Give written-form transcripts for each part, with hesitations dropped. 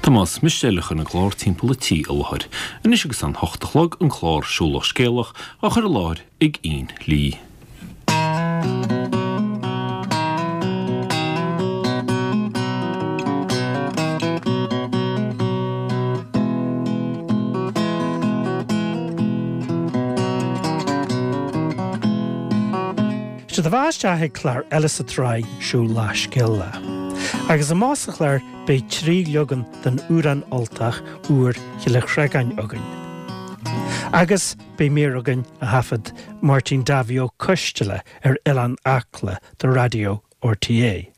Tomás Mistéil a chuir an clár Timpeall an Tí i láthair. Anois agus an hocht a chlog, an clár Siúlach Scéalach á chur i láthair ag Ian Lee. Sé do bheatha isteach ag clár eile sa tsraith Siúl Lá Scéal Lá. Agus amach sa chlár beidh 3 leagan den amhrán Ultach úr Chille Chreagáin againn. Agus beidh mír againn a thaifead Máirtín Davy Ó Coisteala ar Oileán Acla do Raidió RTÉ.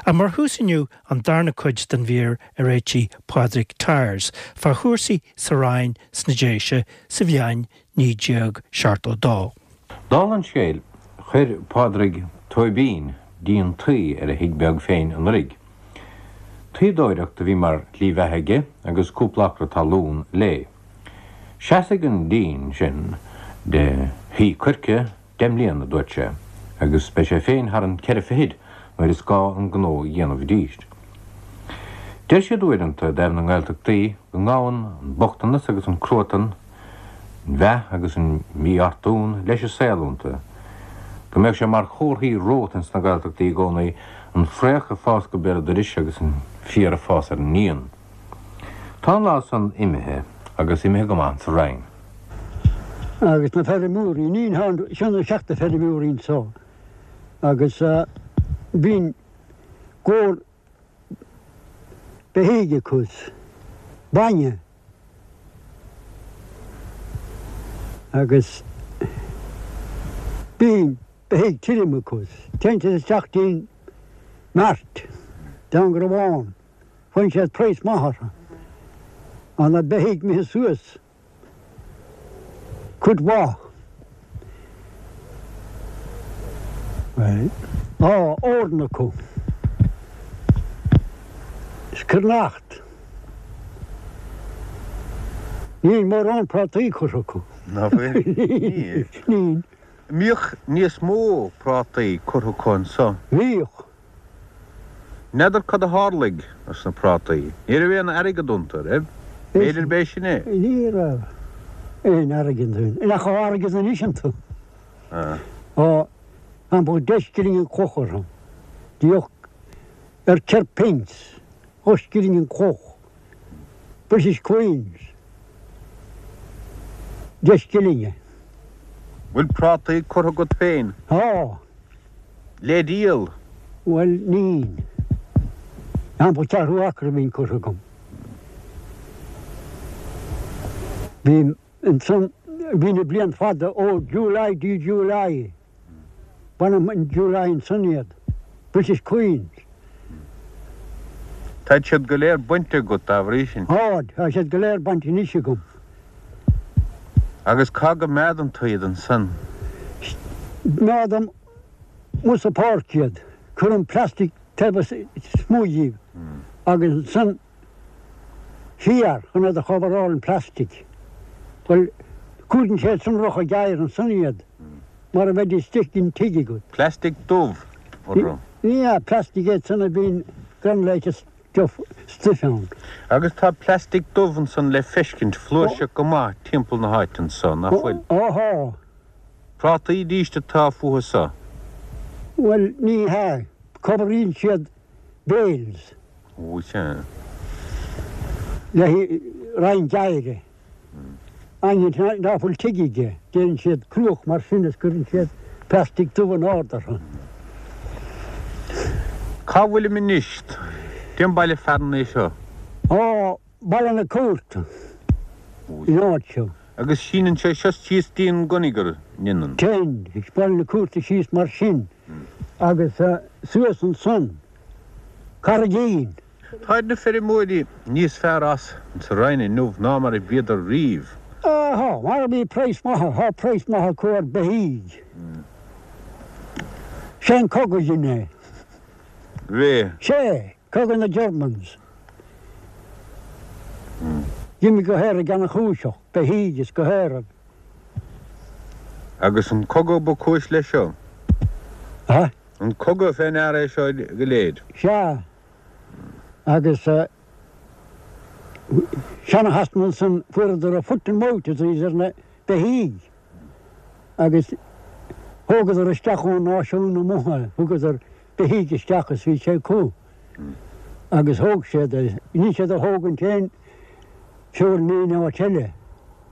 Ach mar thús inniu an darna cuid den mhír a réitigh Pádraig Tyers fá chúrsaí sa Rinn sna Déise sa bhliain 1972. Dála an scéil, chuir Pádraig Tóibín díon tuí ar a thigh beag féin anuraidh. Tuíodóireacht a bhí mar shlí bheatha aige agus cúpla acra talún léi. Seasfaidh an díon sin de thuí coirce deich mbliana, a dúirt sé, agus beidh sé féin thar an ceithre fichid nuair is gá an gnó a dhéanamh arís. Deir siad uaireanta i dtaobh na nGaeltachtaí go ngabhann an bochtanas agus an cruatan, an mheath agus an mífhortún leis an saol iontu, go mbeadh sé mar chomharthaí romhat ins na Gaeltachtaí i gcónaí an fraoch ag fás go béal dorais agus an féar ag fás ar an ndíon. Tá an lá san imithe agus imithe go maith sa Rinn. Agus na feirmeoirí, ní seo na seachta feirmeoirí anso agus bíonn gabhar beithígh acu, bainne agus bíonn beithígh tirim acu. Téann siad isteach dtí'n mart, dtí'n gCrobhán. Faigheann siad praghas maith orthu. Tá na beithígh imithe suas cuid mhaith. Bhuel, tá eorna acu. Is cruithneacht. Níl mórán prátaí curtha acu. Ná fuil? Níl. Níl. Mbíodh níos mó prátaí curtha acu anso? Bhíodh. N'fheadar cad a tharlaigh dos na prátaí. Ní raibh aon airgead iontu, raibh? B'fhéidir b'é sin é. Ní raibh aon airgead iontu. Nach raibh airgead anois iontu. Á, thampall deich scilling an cloch orthu. Bhíodh ar ceithre pence, dhá scilling an cloch. British Queens, deich scillinge. Bhfuil prátaí curtha agat féin? Tá. Le díol? Bhuel, níl. Sampla ceathrú acra a bhíonn curtha agam. Bhí ansan, bhí na bliain fada ó July dtí July. Bainim in July ansan iad. British Queens. Táid siad go léir bainte agat dá bhrí sin? Táid, tá siad go léir bainte anois agam. Agus cá gcoimeádann tú iad ansan? Coimeádaim amuigh sa pháirc iad. Cuirim plastic taobh istigh díobh agus ansan féar chun iad a choveráil an plastic. Bhuel, cumhdaíonn sé sonrach ag oighear ansan iad mar a bheidís istigh den tigh agat. Plastic dubh orthu. Ní hea, plastic iad san a bhíonn granulated stuff stuif ann. Agus tá plastic dubh ansan le feiscint flúirseach go maith timpeall na háite anso, nach bhfuil? Ó thá. Prátaí arís atá fúthu so. Bhuel, ní hea, coveraíonn siad bales. Ó, sea. Le roinnt oighre. Éinne ná fuil tigh aige, déanann siad cruach mar sin is cuireann siad plastic dubh in ard orthu. Cá bhfuilim anois? Cén baile fearainn é seo? Ó, Baile na Cúirte, an áit seo. Agus síneann sé seo síos dtí an gConniger, an ndéanann? Téann, Baile na Cúirte síos mar sin agus suas ansan, Carraigín. Táid na feirmeoirí níos fearr as sa Rinn inniu ná mar a bhíodar riamh. Á, tá, mar bhí praghas maith, tá praghas maith acu ar beithígh. Sé an cogadh a dhein é. Bhí. Sé, cogadh na Germans. D'imigh go hÉirinn ana-chúiseach, beithígh is go hÉirinn. Agus an cogadh ba cúis leis seo? A? An cogadh fé ndear é seo go léir? Sea. Agus. Seana-Shasana ansan fuaireadar a foot and mouth disease ar na beithígh agus thógadar isteach ón náisiún amuigh é, thugadar beithígh isteach is bhí sé acu agus thóg siad é. Níl siad a thógaint aon feoil in aon áit eile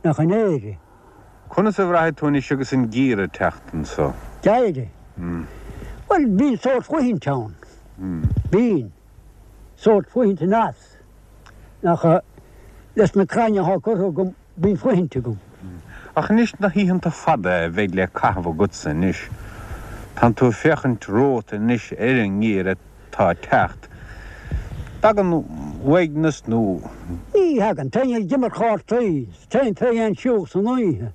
ach in Éirinn. Conas a bhraithfidh tú anois agus an geimhreadh ag teacht anso? Geimhreadh? Bhuel, bíonn sórt fuithint ann. Bíonn. Sórt fuithint aneas. Ach leis na crainn athá curtha agam, bíonn fuithint agam. Ach anois na hoícheanta fada a bheidh le caitheamh agatsa anois, tánn tú ag féachaint romhat anois ar an ngeimhreadh atá ag teacht. Dtagann uaigneas nó. Ní thagann. Téim ag imirt chártaí. Téim fé dhéin siúl san oíche.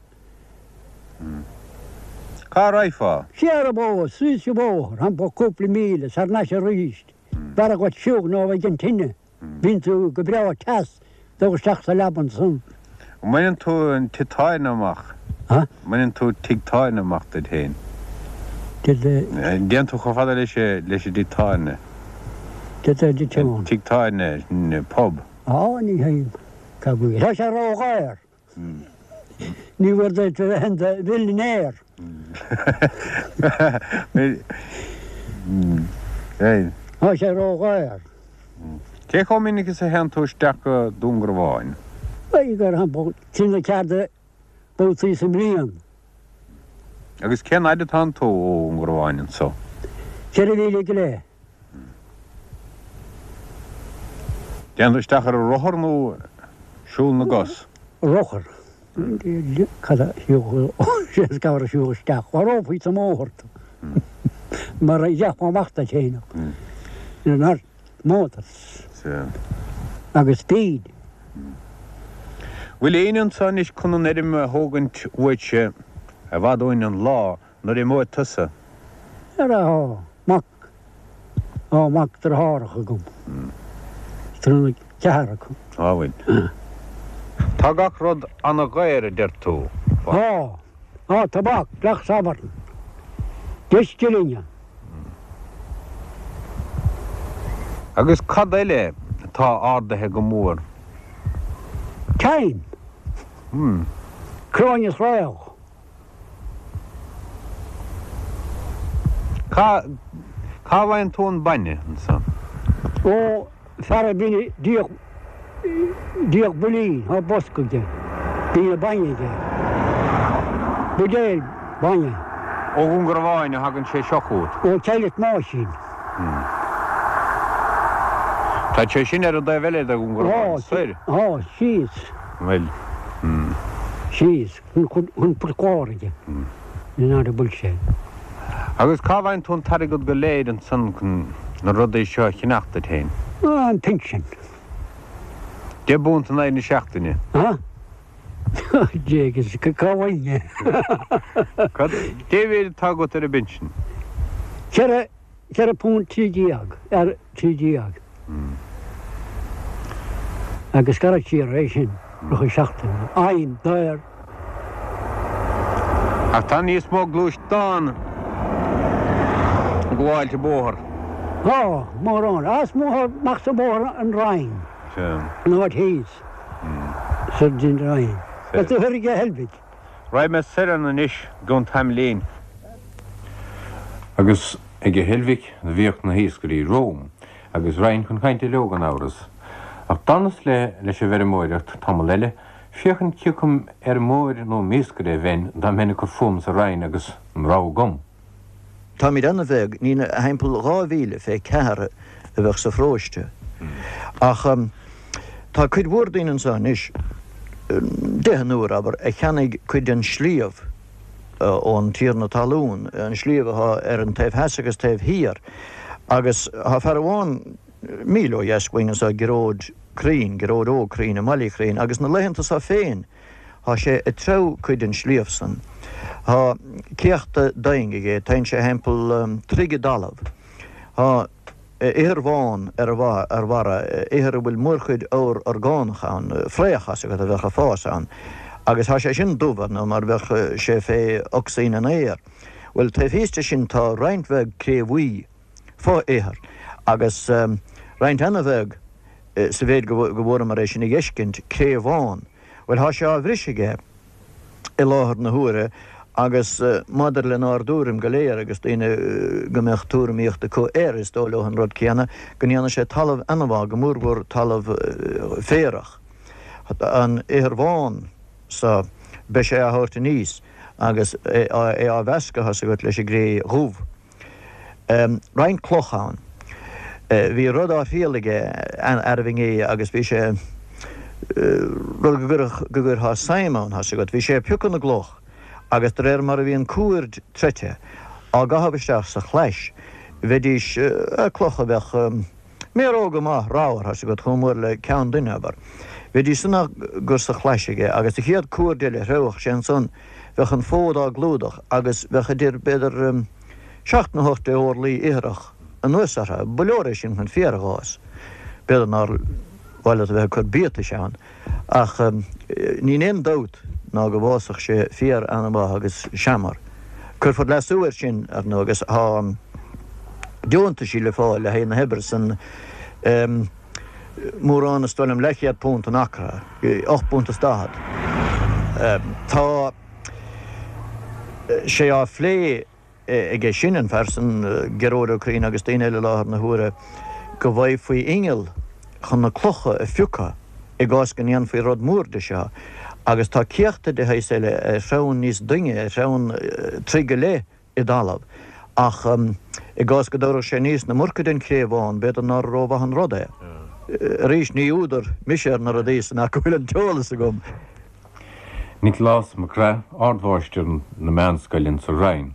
Cá raghfá? Siar an bóthar, síos an bóthar, thimpeall cúpla míle, 's thar n-ais arís. B'fhearra dhuit siúl ná bheith ag an tine. Bíonn tú go breá teas, dul isteach sa leaba ansan. An mbaineann tú an tigh tábhairne amach? Ha? Mbaineann tú tigh tábhairne amach duit féin? Did the. An dtéann tú chomh fada leis leis an dtigh tábhairne? Did the did you. Tigh tábhairne, pub. Á, ní théim. Cá bhfuil? Tá sé ródhaor. Ní bhfuair duit a bheith in do mhillionaire. Tá sé ródhaor. Cé chomh minic is a théann tú isteach go Dún Garbhán? B'fhéidir gur thimpeall trí nó ceathair de bhabhtaí sa mbliain. Agus cén fhaid atánn tú ó Dhún Garbhán anso? Ceithre mhíle go leith. Téann tú isteach ar an rothar nó siúl na gcos? Rothar. Cad a siúl cabhair a siúl isteach. Mharófaí sa mbóthar tú. Mar a gheofá amach duit féin. Ar motors. Agus speed. Bhfuil éinne anso anois chun an fheirm a thógaint uaitse i bhfad uainn an lá Nuair a imeoidh tusa. Ara, tá mac, tá mac deartháireacha agam. Tá ceathrar acu. Á bhfuil. Tá gach rud ana-dhaor a deir tú. Tá. Tá tobac gach Satharn. 10 scillinge. Agus cad eile atá ardaithe go mór? Thyme. Cráin is fhraoch. Cá, cá bhfaigheann tú an bainne ansan? Ó, fear a bhíonn ag díol, díol builín, tá bosca aige, bíonn an bainne aige. Buidéal bainne. Ó Dhún Garbháin a thagann sé seo chugat? Ó Chailleach Máisín. Tá sé sin ar an dtaobh eile de Dhún Garbhán, soir? Tá, síos. Bhuel, Síos. Chun Port Láirge, in áit a bhfuil sé. Agus cá bhfaigheann tú an t-airgead go léir ansan chun na rudaí seo a cheannach duit féin? An pinsean. 10 bpunt in aghaidh na seachtaine. Ha? Jégus, cá bhfaighinn é? Cad, cé mhéad atá agat ar an bpinsean? Ceithre, 4 punt 13 ar 13 agus scaradh siar é sin rith an seachtaine. Fhaighim daor. Ach tá níos mó gluaisteán ag gabháilt an bóthar. Tá, mórán. Is mó amach sa bhóthar an Rinn. An áit thíos. Sa Rinn. Tá tú thoir ag Heilbhic. Raghaidh mé soir ann anois i gcionn tamaillín. Agus ag an Heilbhic do bhíodh na hiascairí romham, agus raghainn chun cainte leo gan amhras. Ach d'fhanas le leis an bhfeirmeoireacht tamall eile, féachaint ciocam fheirmeoir nó m'iascaire a bheinn dá mbeinn ag cur fúm sa Rinn agus an rogha agam. Táimid ana-bheag, ní thimpeall 2,000 fé cheathair a bheadh sa pharóiste. Ach tá cuid mhór daoine anso anois, deichniúr, abair, a cheannaigh cuid den sliabh ón tiarna talún, an sliabh athá ar an taobh theas agus taobh thiar. Agus thá fear amháin míle ó dheas uainn anso, Gearóid Crean, Gearóid Óg Crean i mBaile Chreain, agus na laethanta so féin, Thá sé ag treabhadh cuid den sliabh san. Thá céachta doing aige, téann sé thimpeall troigh i dtalamh. Thá ithir bhán ar a bharra, ithir a bhfuil mórchuid ábhar orgánach ann, fraoch as agat a bheadh ag fás ann. Agus thá sé sin dubh, ar ndóigh, mar bheadh sé fé ocsaigin an aeir. Bhuel, taobh thíos de sin tá roinnt bheag cré bhuí, fo-ithir, agus roinnt ana-bheag. Sa mhéid go bhfuaireamar é sin a dh'fheiscint, cré bhán. Bhuel, thá sé á bhriseadh aige i láthair na huaire agus maidir lenár dtuairim go léir agus daoine go mbeadh tuairimíocht acu air, is dóigh leo an rud céanna, go ndéanfaidh sé talamh ana-mhaith, go mórmhór talamh féarach. An ithir bhán so, beidh sé á thabhairt aníos agus é á mheascadh, thá's agat, leis an gcré dhubh. Roinnt cloch ann. Bhí rud á thriail aige arbh inné agus bhí sé, rud go gcuirfeá suim ann, thá's agat. Bhí sé ag piocadh na gcloch agus de réir mar a bhí an cuaird troite á gcaitheamh isteach sa chlais, bheidís, clocha a bheadh méaróga maith ramhar, thá's agat, chomh mór le ceann duine, abair. Bheidís san á gcur sa chlais aige agus an chéad cuaird eile a threabhfadh sé ansan, bheadh an fód á gclúdach agus bheadh idir, b'fhéidir, seacht nó hocht de orlaí ithreach anuas orthu. Ba leor é sin chun féar a dh'fhás. B'fhéidir nár mhaith leat a bheith ag cur biatais ann, ach níl aon dabht ná go bhfásfadh sé féar an-mhaith agus seamair. Cuirfear leasú air sin, ar ndóigh, agus tá deontaisí le fáil le haghaidh na hoibre san. Mórán, is dóigh liom, leathchéad punt an acra, ocht bpunt is daichead. Tá sé á phlé aige sin, an fear san, Gearóid Ó Curraoin agus daoine eile i láthair na huaire, go bhfaighfí inneall chun na clocha a phiocadh i gcás go ndéanfaí rud mór de seo. Agus tá céachta de shaghas eile ar threabhann níos doimhne, ar threabhann troigh go leith, i dtalamh. Ach i gcás go dtabharfadh sé aníos an iomarca den chré bhán, b'fhéidir nár rómhaith an rud é. Arís, ní údar mise ar na rudaí san ach go bhfuil an t-eolas agam. Nioclás Mac Craith, Ardmháistir na Meánscoile insa Rinn.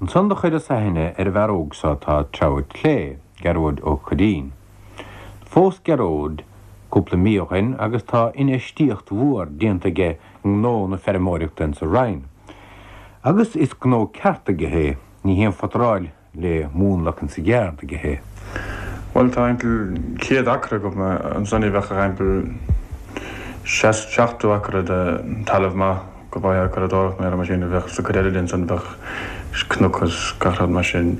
Ansan do chuireas aithne ar an bhfear óg so atá ag treabhadh clé, Gearóid Ó Cuirrín. Phós Gearóid cúpla mí ó shoin agus tá infheistíocht mhór déanta aige i ngnó na feirmeoireachta insa Rinn. Agus is gnó ceart aige é, ní haon phutaráil le múnlacan sa gceárd aige é. Bhuel, tá thimpeall 100 acra agam ansan, bheadh thimpeall 70 acra de talamh maith go bhfaighfeá curadóireacht nó mar sin, bheadh sa cuid eile de ansan bheadh cnoc is gach rud mar sin.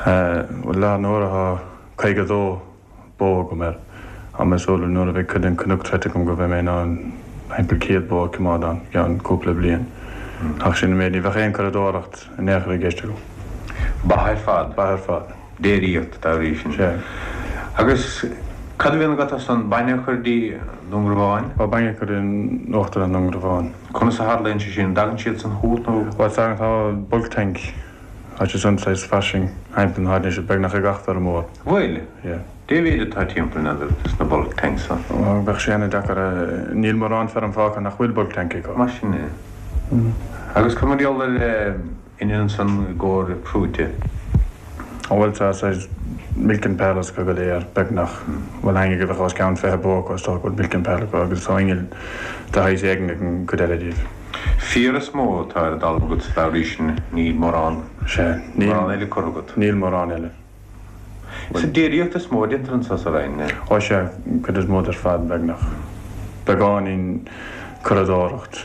Bhuel, i láthair na huaire tá 52 bó agam air. Tá mé ag súil nuair a bheidh cuid den cnoc troite agam go mbeidh mé in ann thimpeall 100 bó a choimeád ann i gceann cúpla bliain. Ach sin an méid, ní bheadh aon curadóireacht in aon chor i gceist agam. Ba ar fad. Ba ar fad. Déiríocht dá bhrí sin. Sea. Agus cad a bhíonn agat as an bainne a chur dtí Dún Garbhán? Ó, bainne a chur in Uachtarlann i nDún Garbhán. Conas a tharlaíonn sé sin? An dtagann siad san chugat nó? Bhuel, tagann, tá bulk tank. Tá sé san saghas fairsing thimpeall na háite anois, beagnach ag gach feirmeoir. Bhuel, Yeah. dé mhéid atá timpeall n'fheadar dos na bulk tanks san? Ó, bheadh sé ana-deacair a, níl mórán feirm fágtha nach bhfuil bulk tank acu. Mar sin é. Agus cad mar gheall ar inneall ansan i gcomhair prúite? Ó bhuel tá saghas milking parlours acu go léir, beagnach. Bhuel éinne go bheadh os cionn 20 bó acu is dócha go bhfuil milking parlour acu agus tá inneall de shaghas éigin ag an gcuid eile díobh. Féar is mó atá ar an dtalamh agat dá bhrí sin, níl mórán, Sea, níl, mórán eile curtha agat. Níl mórán eile. Is déiríocht is mó a déantar anso sa Rinn, eh? Ó sea, cuid is mó de ar fad, beagnach. Beagáinín curadóireacht.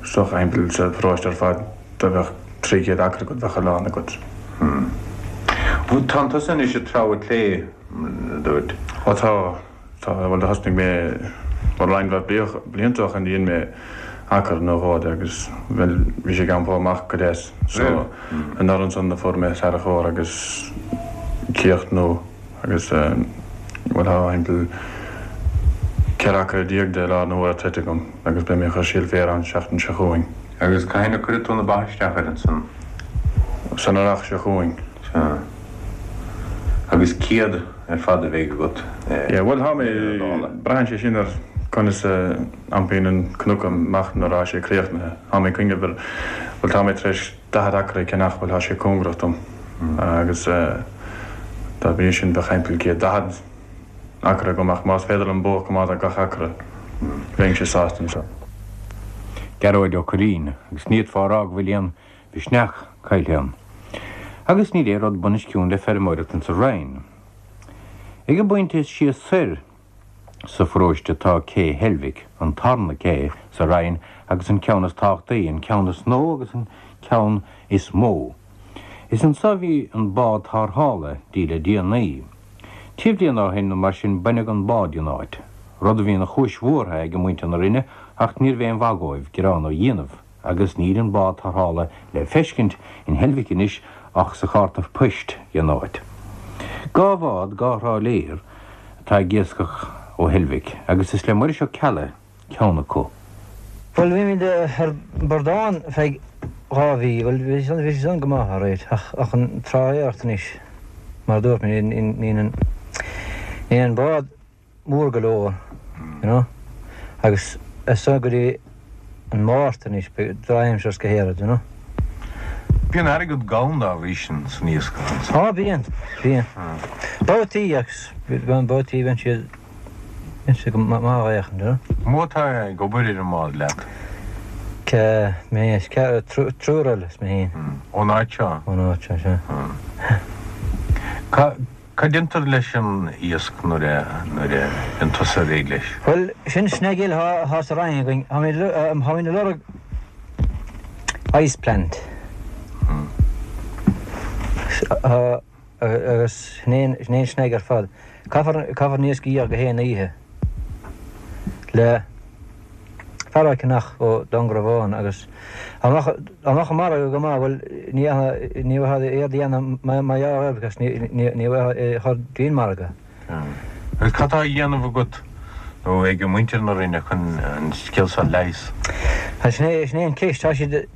Is dócha thimpeall sa pharóiste ar fad dá mbeadh 300 acra agat bheadh a lán agat. Hmm. Tánn tusa anois ag treabhadh clé, a dúirt. Ó tá. Tá, bhuel do thosnaigh mé, bhuel roinnt mhaith blianta ó shoin dhein mé acra nó dhó de agus bhuel bhí sé ag iompó amach go deas so anuraidh ansan do fuair mé tarracóir agus céacht nua agus bhuel tá thimpeall 14 acra de i láthair na huaire troite agam agus beidh mé ag cur síol féir ann seachtain seo chugainn. Agus cathain a cuirfidh tú na ba isteach air ansan? San earrach seo chugainn. Sea. Agus 100 ar fad a bheidh agat Yeah, bhuel tá mé, braitheann sé sin ar conas a iompaíonn an cnoc amach nuair atá sé críochnaithe. Tá mé ag cuimhneamh ar, bhuel tá mé tar éis 40 acra a cheannach, bhuel tá sé cóngarach dom agus dá bhrí sin bheadh thimpeall 140 acra agam ach más féidir liom bó a choimeád ar gach acra bheinnse sásta ansan. Gearóid Ó Curraoin, agus ní fhéadfá a rá go bhfuil aon mhisneach caillte ann. Agus níl aon rud bunoscionn le feirmeoireacht insa Rinn. Ag an bpointe is sia soir sa pharóiste tá Cé Heilbhic, an tarna cé sa Rinn agus an ceann is tábhachtaí, an ceann is nua agus an ceann is mó. Is anso a bhí an bád tarrthála dtí le déanaí. Trí bliana ó shin nó mar sin baineadh an bád den áit, rud a bhí ina chúis bhuartha ag muintir na Rinne ach níorbh aon mhaith dhóibh gearán a dhéanamh agus níl an bád tarrthála le feiscint in Heilbhic anois ach sa chárta poist den áit. Dhá bhád, dhá thráiléir atá ag iascach ó Heilbhic agus is le Muiris Ó Ceallaigh ceann acu. Bhuel, bhí muid ar bradán feadh dhá mhí, bhuel, bhí san, bhí san go maith, alright, ach, ach an trálaeireacht anois, mar a dúirt mé, níl an, níl an bád mór go leor, you know, agus as san go dtí an Márta anois, beidh drochaimsir is go héirid, you know. Bíonn airgead gann dá bhrí sin san iascach ansan. Á, bíonn, bíonn. Babhtaí agus, babhtaí bíonn siad. Is go maith a fhéachann tú. Mó atá ag obair ar an mbád leat? C, Mé is triúr eile is mé féin. Ón áit seo? Ón áit seo, sea. Cad a déantar leis an iasc nuair a nuair a bhíonn tusa réidh leis? Bhuel, sin snag eile atá sa Rinn againn. Táimid ag lorg ice plant. Agus sin é an snag ar fad. Caithfear, caithfear an iasc a dhíol go haon oíche le fear á cheannach ó Dúngarbhán agus dá mbeadh, dá mbeadh an margadh go maith, bhuel, ní, ní bheifeá éard a dhéanamh mar gheall air because ní, ní, ní bheifeá é a chur dtí'n margadh. Agus cad tá á dhéanamh agat nó ag muintir na Rinne chun an scéal seo a leigheas? Sin é, sin é an ceist. Tá siad,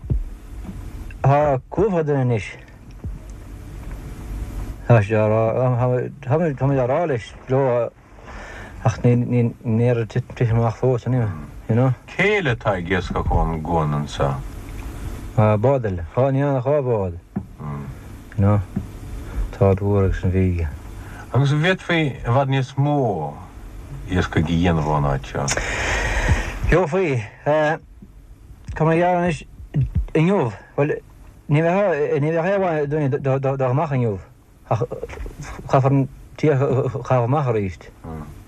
tá cúpla duine anois. Tá sé á rá, táimid á rá leis, leo ach ní ní tite amach fós anyway, you know. Cé eile atá ag iascach ón gcuan anseo? Bád eile. Dhá, ní ach dhá bhád, you know. Tá an Mhór agus an Bhig. Agus an bhféadfaí i bhfad níos mó iascaigh a dhéanamh ón áit seo? Gheofaí. Tá mé ag gearán anois inniu, bhuel, Ní bheadh ní bheadh aon mhaith dúinne dul amach inniu ach caithfear an t-iasc a chaitheamh amach arís.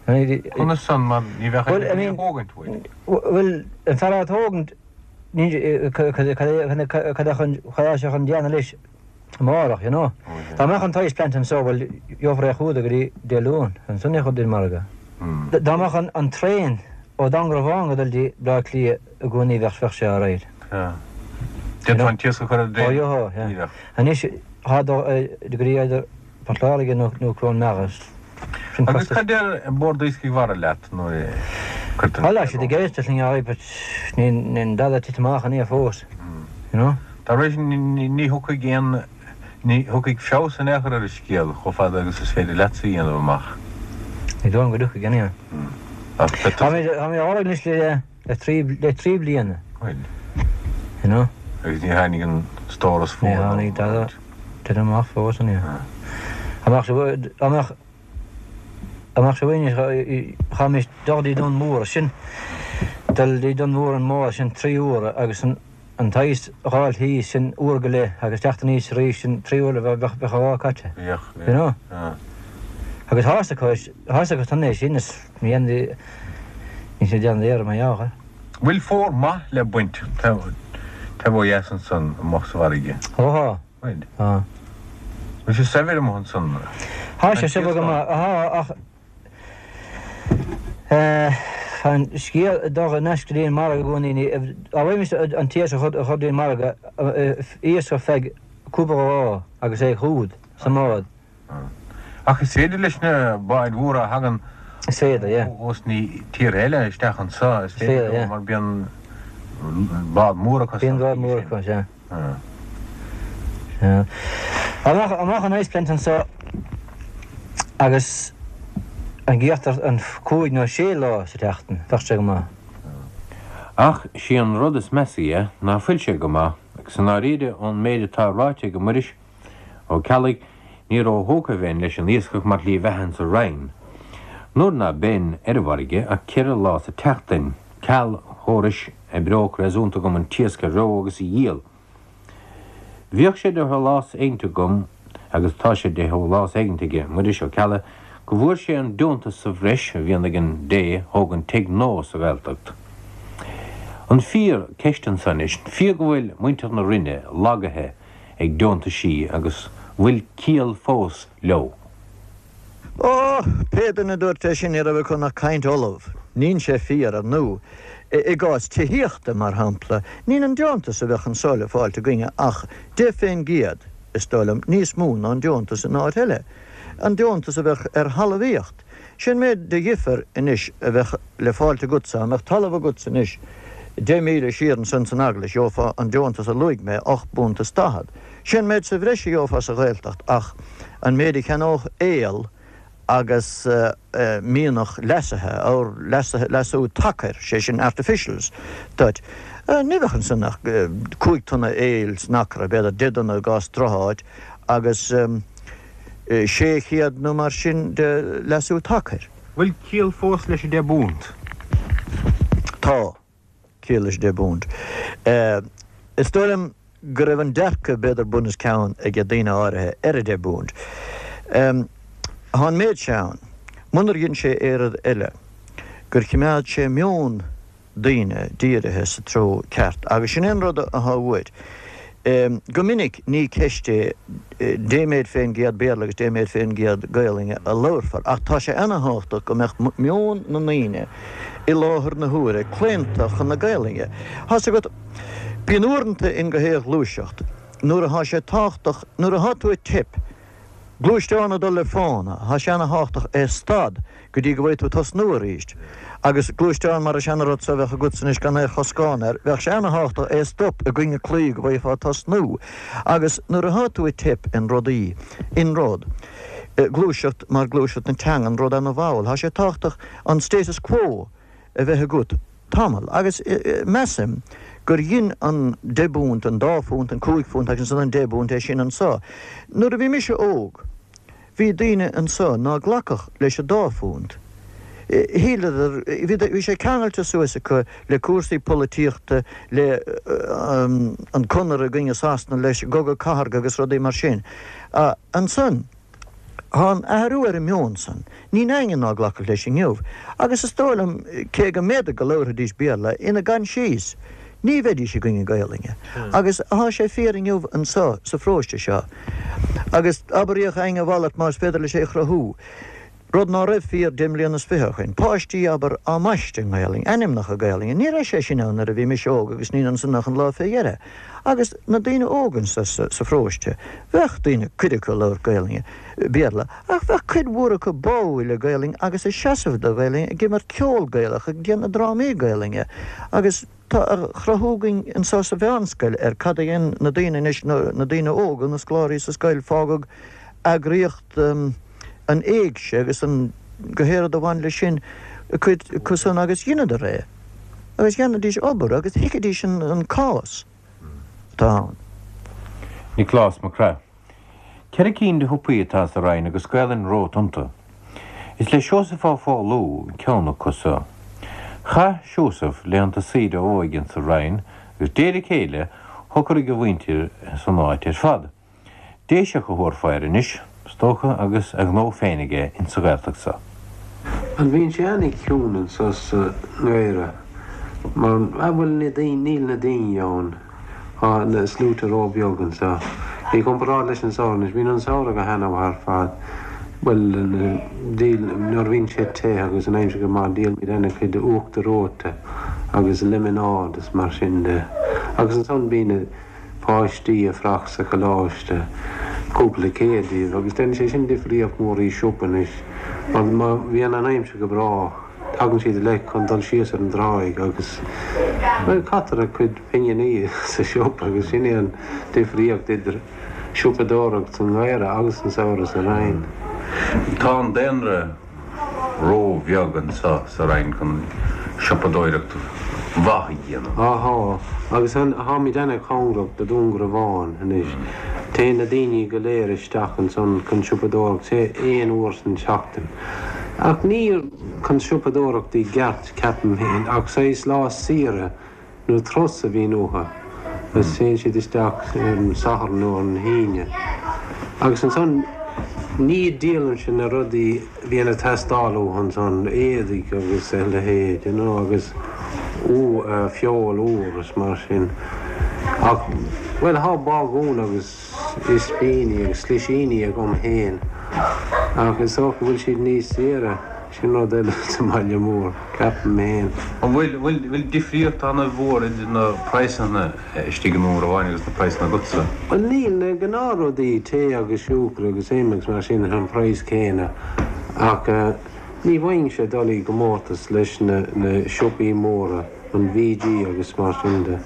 Conas san mar ní bheadh aon duine a thógaint uait? Bhuel, an fear á tógaint cad é cad é sé chun déanamh leis amárach, you know. Dá mbeadh an t-ice plant anso, bhuel, gheofar é chugat go dtí Dé Luain, ansan é a chur dtí'n margadh. Dá mbeadh an traein ó Dúngarbhán go dul dtí Bleá Cliath i gcónaí bheadh bheadh sé alright. D'fhéadfá an t-iasc a chur ar an dtraein díreach. Anois tá dul go dtí either Port Láirge nó Cluain Meadha. Sin Agus costas. cad deir Bord Iascaigh Mhara leat nuair a cuirtear an Bhuel, tá siad ag éisteacht linn alright but níl dada tite amach in aon fós, you know. Dá réir sin ní thiocfaidh aon, ní thiocfaidh feabhas in aon chor ar an scéal chomh fada agus is féidir leatsa a dhéanamh amach. Ní dóigh liom go dtiocfaidh anyway. Ach beidh tusa. Tá mé á lorg anois le. Le trí, le trí bliana. Bhuel. You know. Agus ní tháinig an stóras fóir. Ní tháinig dada tite amach fós an ea. Amach sa, amach, amach sa bhain, chaithfimis dul dtí Dún Mór, sin, dul dtí Dún Mór an mbád sin trí huaire agus an, an t-ice a dh'fháil thíos sin uair go leith agus teacht aníos arís sin trí huaire bheadh, bheadh an lá caite. Bheadh, bheadh. You know. Agus tá fhios acu, tá fhios acu san é sin is ní dhéanfaidh, níl siad ag déanamh iarraidh mar gheall air. Bhfuil fómhar maith le baint taobh ó dheas ansan amuigh sa bhfarraige? Ó thá. Bhfuil? Tá. Bhfuil sé saibhir amuigh ansan? Thá sé saibhir go maith, thá ach tá an scéal ag dul in aisce go dtí an margadh i gcónaí, ní, dá bhfaighimist an t-iasc a chur go dtí an margadh, iasc ar feadh cúpla lá agus é chugat sa mbád. Ach is féidir leis na báid mhóra a thagann Is féidir, yeah. ós na tíortha eile isteach anseo, is féidir leo mar bíonn bád mór acu. Bíonn bád mór acu, sea. Sea. Dá mbeadh an ice plant anseo agus an gíochtar an cúig nó sé lá sa tseachtain, bheadh sé go maith. Ach sí an rud is measa dhe ná fuil sé go maith, agus i ndáiríre ón méid atá ráite ag Muiris, Ó Ceallaigh, ní ró-thógtha a bheinn leis an iascach mar shlí bheatha insa Rinn. Nuair ná beinn ar an bhfarraige ach ceithre lá sa tseachtain, ceal chórais oibreodh réasúnta agam an t-iasc a reo agus a dhíol. Bhíodh sé de shólás éigint agam, agus tá sé de shólás éigint aige Muiris Ó Ceallaigh, go bhfuair sé an deontas sa bhreis a bhíonn ag an dté a thógann tigh nua sa Ghaeltacht. An fíor, ceist anso anois, an fíor go bhfuil muintir na Rinne lagaithe ag deontaisí agus bhfuil ciall fós leo. Ó, pé duine a dúirt é sin ní raibh acu ach caint fholamh. Níl sé fíor, ar ndú. I gcás tithíochta, mar shampla, níl an deontas a bheadh anso le fáilt againne ach 10%, is dóigh liom, níos mó ná an deontas in áit eile. An deontas a bheadh ar thalmhaíocht. Sin méid de dhifear anois a bheadh le fáilt agatsa, dá mbeadh talamh agatsa anois 10 míle siar ansan san Eaglais, gheofá an deontas a luaigh mé, ocht bpunt is daichead. Sin méid sa bhreis a gheofá sa Ghaeltacht ach an méid a cheannódh aol agus mianach leasaithe, or leasaithe, leasú tacair, sé sin artificials, duit. Ní bheadh ansan ach 5 tonna aoil san acra, b'fhéidir 10 dtonna i gcás drocháit agus 600 nó mar sin de leasú tacair. Bhfuil ciall fós leis an deich bpunt? Tá ciall leis an deich bpunt. Is dóigh liom go raibh an dearcadh b'fhéidir bun os cionn ag daoine áirithe ar an deich bpunt. Tá an méid seo ann, munar dhein sé aon rud eile, gur chimeád sé meon daoine dírithe sa treo ceart agus sin é an rud atá uait. Go minic ní ceist é dé méid fén gcéad Béarla agus dé méid fén gcéad Gaolainne a labharfar ach tá sé ana-thábhachtach go mbeadh meon na ndaoine i láthair na huaire claonta chun na Gaolainne. Tá's agat, bíonn uaireanta in gach aon ghluaiseacht nuair atá sé tábhachtach, nuair atá tú ag teip, Gluaisteán ag dul le fána, tá sé ana-thábhachtach é stad go dtí go bhfaighidh tú tosnú arís. Agus gluaisteán mar an seana-rud so a bheadh agatsa anois gan aon choscán air, bheadh sé ana-thábhachtach é stop i gcoinne claí go bhfaighfeá tosnú. Agus nuair atá tú ag teip in rudaí, in rud, gluaiseacht mar gluaiseacht na teangan, rud ana-mhall, tá sé tábhachtach an status quo a bheith agat tamall. Agus measaim gur dhein an deich bpunt, an dá phunt, an cúig phunt agus ansan an deich bpunt é sin anso. Nuair a bhí mise óg bhí daoine anso ná glacfadh leis an dá phunt. Shíleadar, bhí sé ceangailte suas acu le cúrsaí polaitíochta, le an Conradh i gcoinne Sasana, leis an gCogadh Cathartha agus rudaí mar sin. Ansan. Tá an athrú ar an meon san. Níl éinne ná glacfadh leis inniu. Agus is dóigh liom, cé go mb'fhéidir go labharfaidís Béarla ina gcoinsias, ní bheidís i gcoinne Gaolainne. Agus tá sé fíor inniu anso sa pharóiste seo. Agus abraíodh againn a mhalairt más féidir leis é a chruthú. Rud ná raibh fíor deich mbliana is fiche ó shoin. Páistí, abair, á mbaisteadh i nGaolainn, ainmneacha Gaolainne. Ní raibh sé sin ann nuair a bhí mise óg agus níl ansan ach an lá fé dheireadh. Agus na daoine óga anso sa pharóiste, bheadh daoine, cuid acu ag labhairt Gaolainne, Béarla, ach bheadh cuid mhór acu báúil le Gaolainn agus ag seasamh do Ghaolainn, ag imirt ceol Gaelach, ag déanamh drámaí Gaolainne. Agus tá a chruthú againn anso sa mheánscoil ar cad a dhein na daoine anois, na daoine óga, na scoláirí sa scoil, fágadh eagraíocht, an éigse agus an gach aon rud a bhain leis sin, cuid acu san agus dheineadar é agus dhéanaidís obair agus thuigidís an cás atá ann. Nioclás Mac Craith. Ceithre cinn de shiopaí atá sa Rinn agus Gaelainn romhat iontu. Is le Seosamh Ó Foghlú ceann acu so. Chaith Seosamh laethanta saoire a óige insa Rinn agus de réir a chéile shocraigh a mhuintir san áit ar fad. Déiseach a thabharfá air anois, is dócha, agus a ghnó féin aige insa Ghaeltacht so. An bhíonn sé ana-chiúin anso sa ngeimhreadh mar ah bhuel na daoine, níl na daoine ann, tá na sluaite ró-bheag anso. I gcomparáid leis an samhradh anois, bíonn an samhradh go hana-mhaith ar fad, bhuel díol, nuair a bhíonn sé te agus an aimsir go maith díolaimid ana-chuid uachtar reoite agus lemonáid is mar sin de. Agus ansan bíonn na. páistí ag fuireach sa choláiste, cúpla céad díobh, agus déanann sé sin difríocht mhór i siopa anois, mar má bhíonn an aimsir go breá, tagann siad uilig chun dul síos ar an dtráigh agus, bhuel, caitear a gcuid pinginí sa siopa agus sin é an difríocht idir siopadóireacht sa ngeimhreadh agus an samhradh sa Rinn. Tá an daonra. ró-bheag anso sa Rinn chun siopadóireacht mhaith a dhéanamh. Á thá, agus tháimid ana-chóngarach do Dún Garbhán anois. Téann na daoine go léir isteach ansan chun siopadóireacht, sé aon uair san tseachtain. Ach ní chun siopadóireacht i gceart, ceapaim féin, ach saghas lá saoire nó turas a bhíonn uathu agus téann siad isteach ar an Satharn nó ar an hAoine. Agus ansan ní díolaimse na rudaí a bhíonn ag teastáil uathu ansan, éadaigh agus a leithéid, you know, agus feoil úr is mar sin. Ach, bhuel, thá bagún agus ispíní agus slisíní agam féin. Ach is dócha go bhfuil siad níos saoire, sin rud eile sa mbaile mór, ceapaim féin. An bhfuil, bhfuil, bhfuil difríocht ana-mhór idir na praghsanna istigh i nDún Garbháin agus na praghsanna agatsa? Bhuel níl, na gnáthrudaí, tae agus siúcra agus im agus mar sin, an praghas céanna ach ní bhfaighimse dul i gcomórtas leis na siopaí móra. an VG agus mar sin de.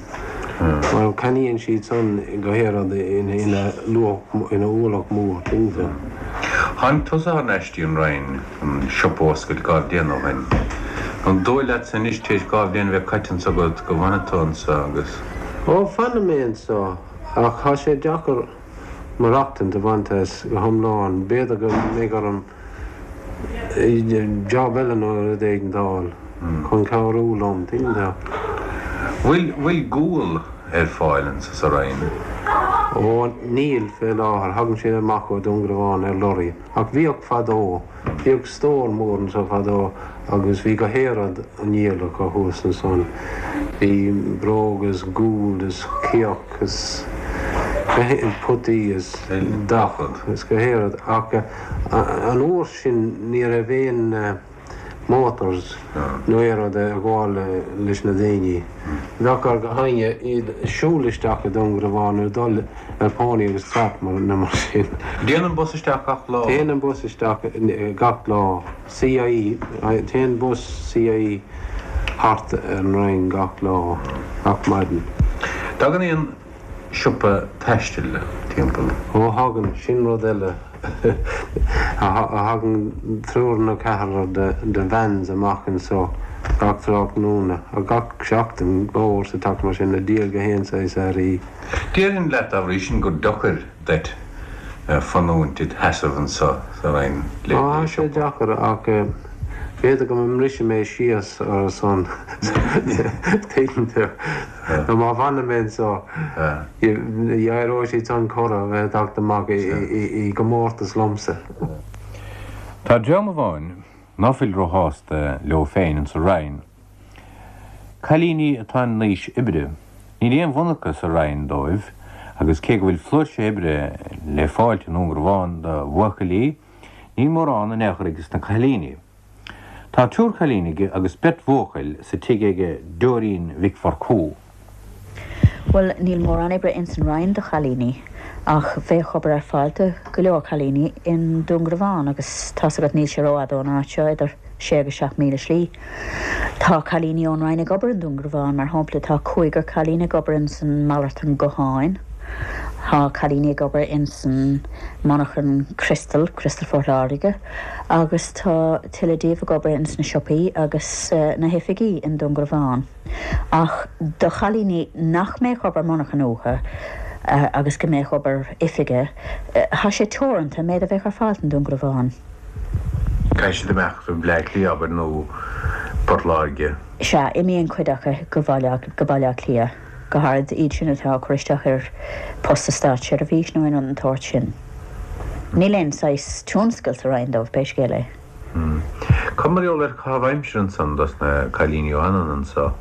Mar ceannaíonn siad san go haon rud ina luach, ina ualach mór, tuigeann tú. Tháinig tusa thar n-ais dtí an Rinn chun siopa a oscailt dhá bhliain ó shin. An dóigh leatsa anois, tar éis dhá bhliain a bheith caite anso agat, go bhfanfaidh tú anso agus. Ó, fanfaidh mé anso, ach tá sé deacair maireachtaint a bhaint as go hiomlán. B'fhéidir go mbeidh orm job eile nó rud éigin a fháil chun cabhrú liom, tuigeann tú. Bhfuil, bhfuil gual ar fáil anso sa Rinn? Ó, níl fé láthair, thagann sé amach ó Dún Garbhán ar lorry. Ach bhíodh fadó, bhíodh stór mór anso fadó agus bhí gach aon rud á ndíol acu thuas ansan. Bhí bróga is gual is cíoch is potaí is gach rud is gach aon rud ach An uair sin ní raibh aon motors nó aon rud ag gabháil leis na daoine. Bheadh ar gach éinne iad siúl isteach i Dún Garbhán nó dul ar pony agus trap nó mar sin. Dtéann an bus isteach gach lá? Téann an bus isteach gach lá. CIE, Téann bus CIE thart ar an Rinn gach lá, gach maidin. Tagann aon siopa taistil timpeall. Ó thagann, sin rud eile. Thagann triúr nó ceathrar de vans amach anso gach tráthnóna, gach seachtain, dhá uair sa tseachtain mar sin, ag díol gach aon saghas earraí. Déarfainn leat dá bhrí sin gur deacair duit fanúint id sheasamh anso sa Rinn le Tá sé deacair ach b'fhéidir go mbrisfidh mé síos ar a son, tuigeann tú. Nó má fhanann mé anso, éireoidh siad san corradh a bheith ag teacht amach i gcomórtas liomsa. Tá dream amháin ná fuil róshásta leo féin insa Rinn. Cailíní atá in aois oibre. Níl aon mhonarcha sa Rinn dóibh agus cé go bhfuil flúirse oibre le fáilt i nDún Garbhán do bhuachaillí, níl mórán in aon chor aige sna cailíní. Tá triúr cailín aige agus beirt bhuachaill sa tigh aige Dóirín Mhic Mhurchú. Bhuel, níl mórán oibre ins an Rinn do chailíní, ach bheadh obair ar fáil do go leor cailíní i nDún Garbhán agus tá's agat níl sé rófhada ón áit seo, idir sé agus 7,000 slí. Tá cailíní ón Rinn ag obair i nDún Garbhán, mar shampla tá cúigear cailín ag obair ins an malartán gutháin, tá cailíní ag obair ins an monarchan criostail, Criostal Phort Láirge. agus tá tuilleadh díobh ag obair ins na siopaí agus na hoifigí i nDún Garbhán. Ach do chailíní nach mbeadh obair monarchan uathu agus go mbeadh obair oifige, tá sé teoranta an méid a bheadh ar fáil i nDún Garbhán. Caithfidh siad imeacht go Bleá Cliath, abair, nó Port Láirge. Sea, imíonn cuid acu go Baile Átha Cliath. go háirid iad sin atá ag cur isteach ar post sa státseirbhís nó aon rud den tsórt sin. Níl aon saghas tionscail sa Rinn dóibh, pé scéal é. Cad mar gheall ar chaitheamh aimsire ansan dos na cailíní a fhanann anso?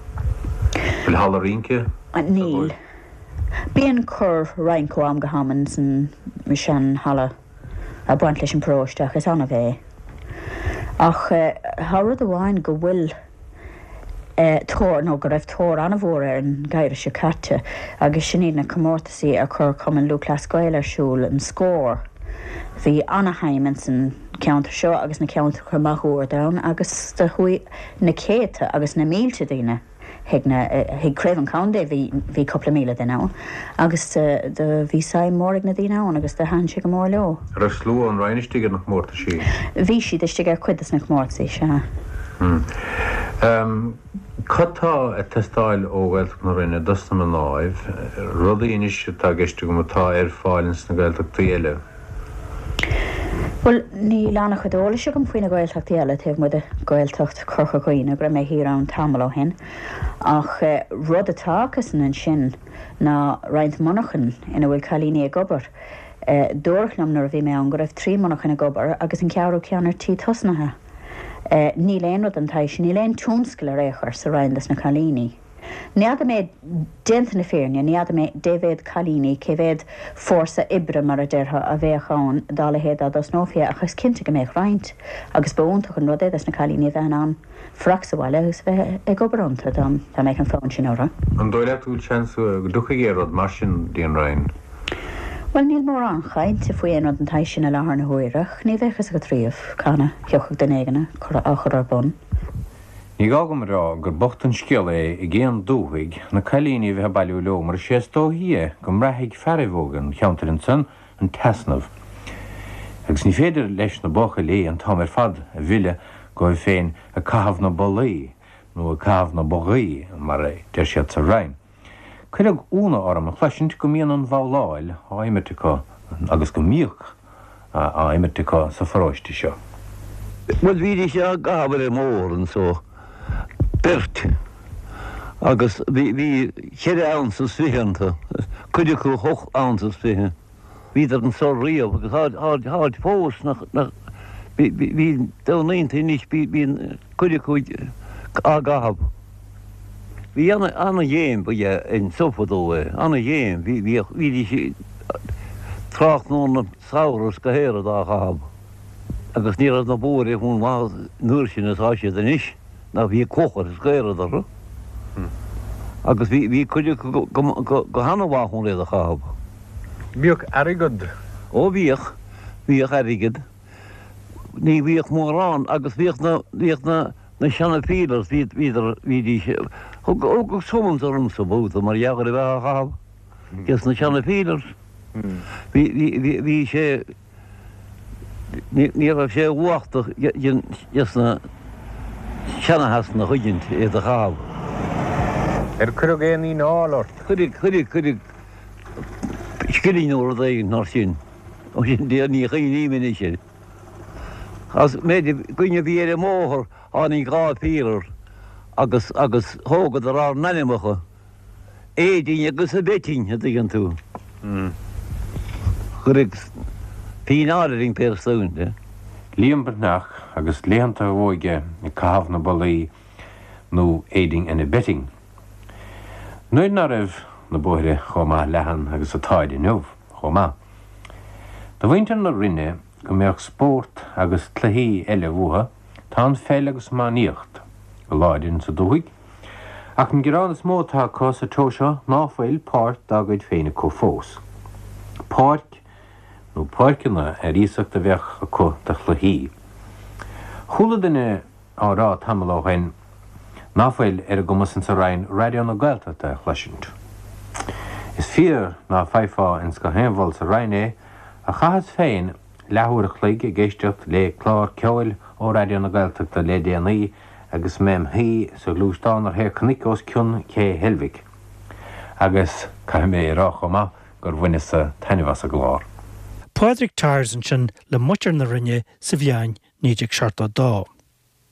Bhfuil halla rince anso Níl. dóibh? Bíonn cor rince ó am go ham ins an sean halla ag baint leis an bparóiste ach is annamh é. Ach tá rud amháin go bhfuil. tóir, nó go raibh tóir an-mhór air an geimhreadh seo caite, agus sin iad na comórtasaí a chuir Cumann Lúthchleas Gael ar siúl, an Scór. Bhí ana-shuim ins an cheantar seo agus na ceantracha máguaird ann agus do chuaigh na céadta agus na mílte daoine chuig na, chuig Craobh an Chontae, bhí, bhí cúpla míle duine ann agus do bhí suim mhór ag na daoine ann agus do thaitin sé go mór leo. An raibh slua ón Rinn istigh ar na comórtaisí? Bhí siad istigh ar chuid des na comórtasaí, sea. Cad tá ag teastáil ó Ghaeltacht na Rinne dos na mnáibh, rudaí anois atá i gceist agam atá ar fáil ins na Gaeltachtaí eile? Bhuel, níl an-chuid eolais agam faoi na Gaeltachtaí eile taobh amuigh de Ghaeltacht Chorca Dhuibhne, go raibh mé thiar ann tamall ó shin. Ach rud atá acusan ansin ná roinnt monarchan ina bhfuil cailíní ag obair. Dúradh liom nuair a bhí mé ann go raibh 3 monarchan ag obair agus an ceathrú ceann ar tí tosnaithe. Níl aon rud den tsaghas sin, níl aon tionscal ar aon chor sa Rinn dos na cailíní. N'fheadar mé, déanta na fírinne, ní fheadar mé dé mhéad cailíní, cé mhéad fórsa oibre, mar a déarfá, a bheadh ann dá leithéid dá dtosnófaí é, ach is cinnte go mbeadh roinnt, agus ba iontach an rud é dos na cailíní a bheith in ann fanacht sa bhaile agus a bheith ag obair iontu, dá mbeadh an fonn sin orthu. An dóigh leat go bhfuil seans go dtiocfaidh aon rud mar sin dtí an Rinn? Bhuel, níl mórán chainte faoi aon rud den tsaghas sin i láthair na huaire, ach ní bheadh fhios agat riamh cathain a thiocfadh duine éigin á chur ar bun. Ní gá dom a rá gur bocht an scéal é ag aon dúthaigh na cailíní a bheith ag bailiú leo mar is é is dóichí é go mbraithfidh fearaibh óga an cheantair ansan an t-easnamh agus ní féidir leis na buachaillí an t-am ar fad a mhilleadh dhóibh féin ag caitheamh na bollaí nó ag caitheamh na bogaí mar a deir siad sa Rinn. Cuireadh ionadh orm a chloisint go mbíonn an bhabhláil á imirt acu agus go mbíodh á imirt acu sa pharóiste seo. Bhuel bhídís á gcaitheamh ar an mbóthar anso, beirt, agus bhí bhí cheithre ounce is fiche iontu, cuid acu hocht ounce is fiche. Bhíodar anso riamh agus táid táid fós nach nach bhí bhí domhnaíonta anois bíonn cuid acu á gcaitheamh. Bhí ana ana ghéim ba ea anso fadó é, ana ghéim, bhí bhíodh bhídís tráthnóna samhradh is go hearrach á chaitheamh agus ní raibh na bóithre chomh maith an uair sin is atá siad anois ná bhí clocha is gaoradh orthu agus bhí bhí cuid acu go go go hana-mhaith chun iad a chaitheamh. Bhíodh airgead. Ó bhíodh, bhíodh airgead. Ní bhíodh mórán agus bhíodh na, bhíodh na, na seana peelers, bhíod, bhíodar, bhídís, thug, thugadh summons ormsa babhta mar gheall ar a bheith á chaitheamh, des na seana peelers. Bhí, bhí, bhí, bhí sé, ní, ní raibh sé uachtach des na seana-Shasanaigh thuigeann tú, iad a chaitheamh. Ar cuireadh aon fhíneáil ort? Cuireadh, cuireadh, cuireadh scilling nó rud éigin mar sin. Ó sin de ní chuimhním anois air. As méid againn a bhí ar an mbóthar tháinig 2 peeler agus agus thógadar ár n-ainmeacha, Aedín agus a Beitín, a dtuigeann tú. Cuireadh fíneáil orainn pé ar de. Liam Breathnach agus laethanta a óige ag caitheamh na bollaí nó aiding and abetting. Nuair ná raibh na bóithre chomh maith leathan agus atáid inniu chomh maith. Do mhuintir na Rinne go mbeadh spórt agus cluichí eile uathu, tá an pheil agus iománaíocht go láidir insa dúthaigh, ach an gearán is mó atá acu sa treo seo ná fuil páirc dá gcuid féin acu fós. Páirc nó páirceanna ar iasacht a bheadh acu do chluichí. Chuala duine á rá tamall ó shoin ná fuil ar a gcumas insa Rinn Raidió na Gaeltachta a chloisint. Is fíor ná faighfeá ins gach aon mhol sa Rinn é, ach chaitheas féin leathuair a chloig ag éisteacht lé clár ceoil ó Raidió na Gaeltachta lé déanaí agus mé im shuí sa ghluaisteán ar thaobh cnoic os cionn Ché Heilbhic. Agus caithfidh mé a rá chomh maith gur bhaineas-sa taitneamh as an gclár. Pádraig Tyers ansin le muintir na Rinne sa bhliain 1972.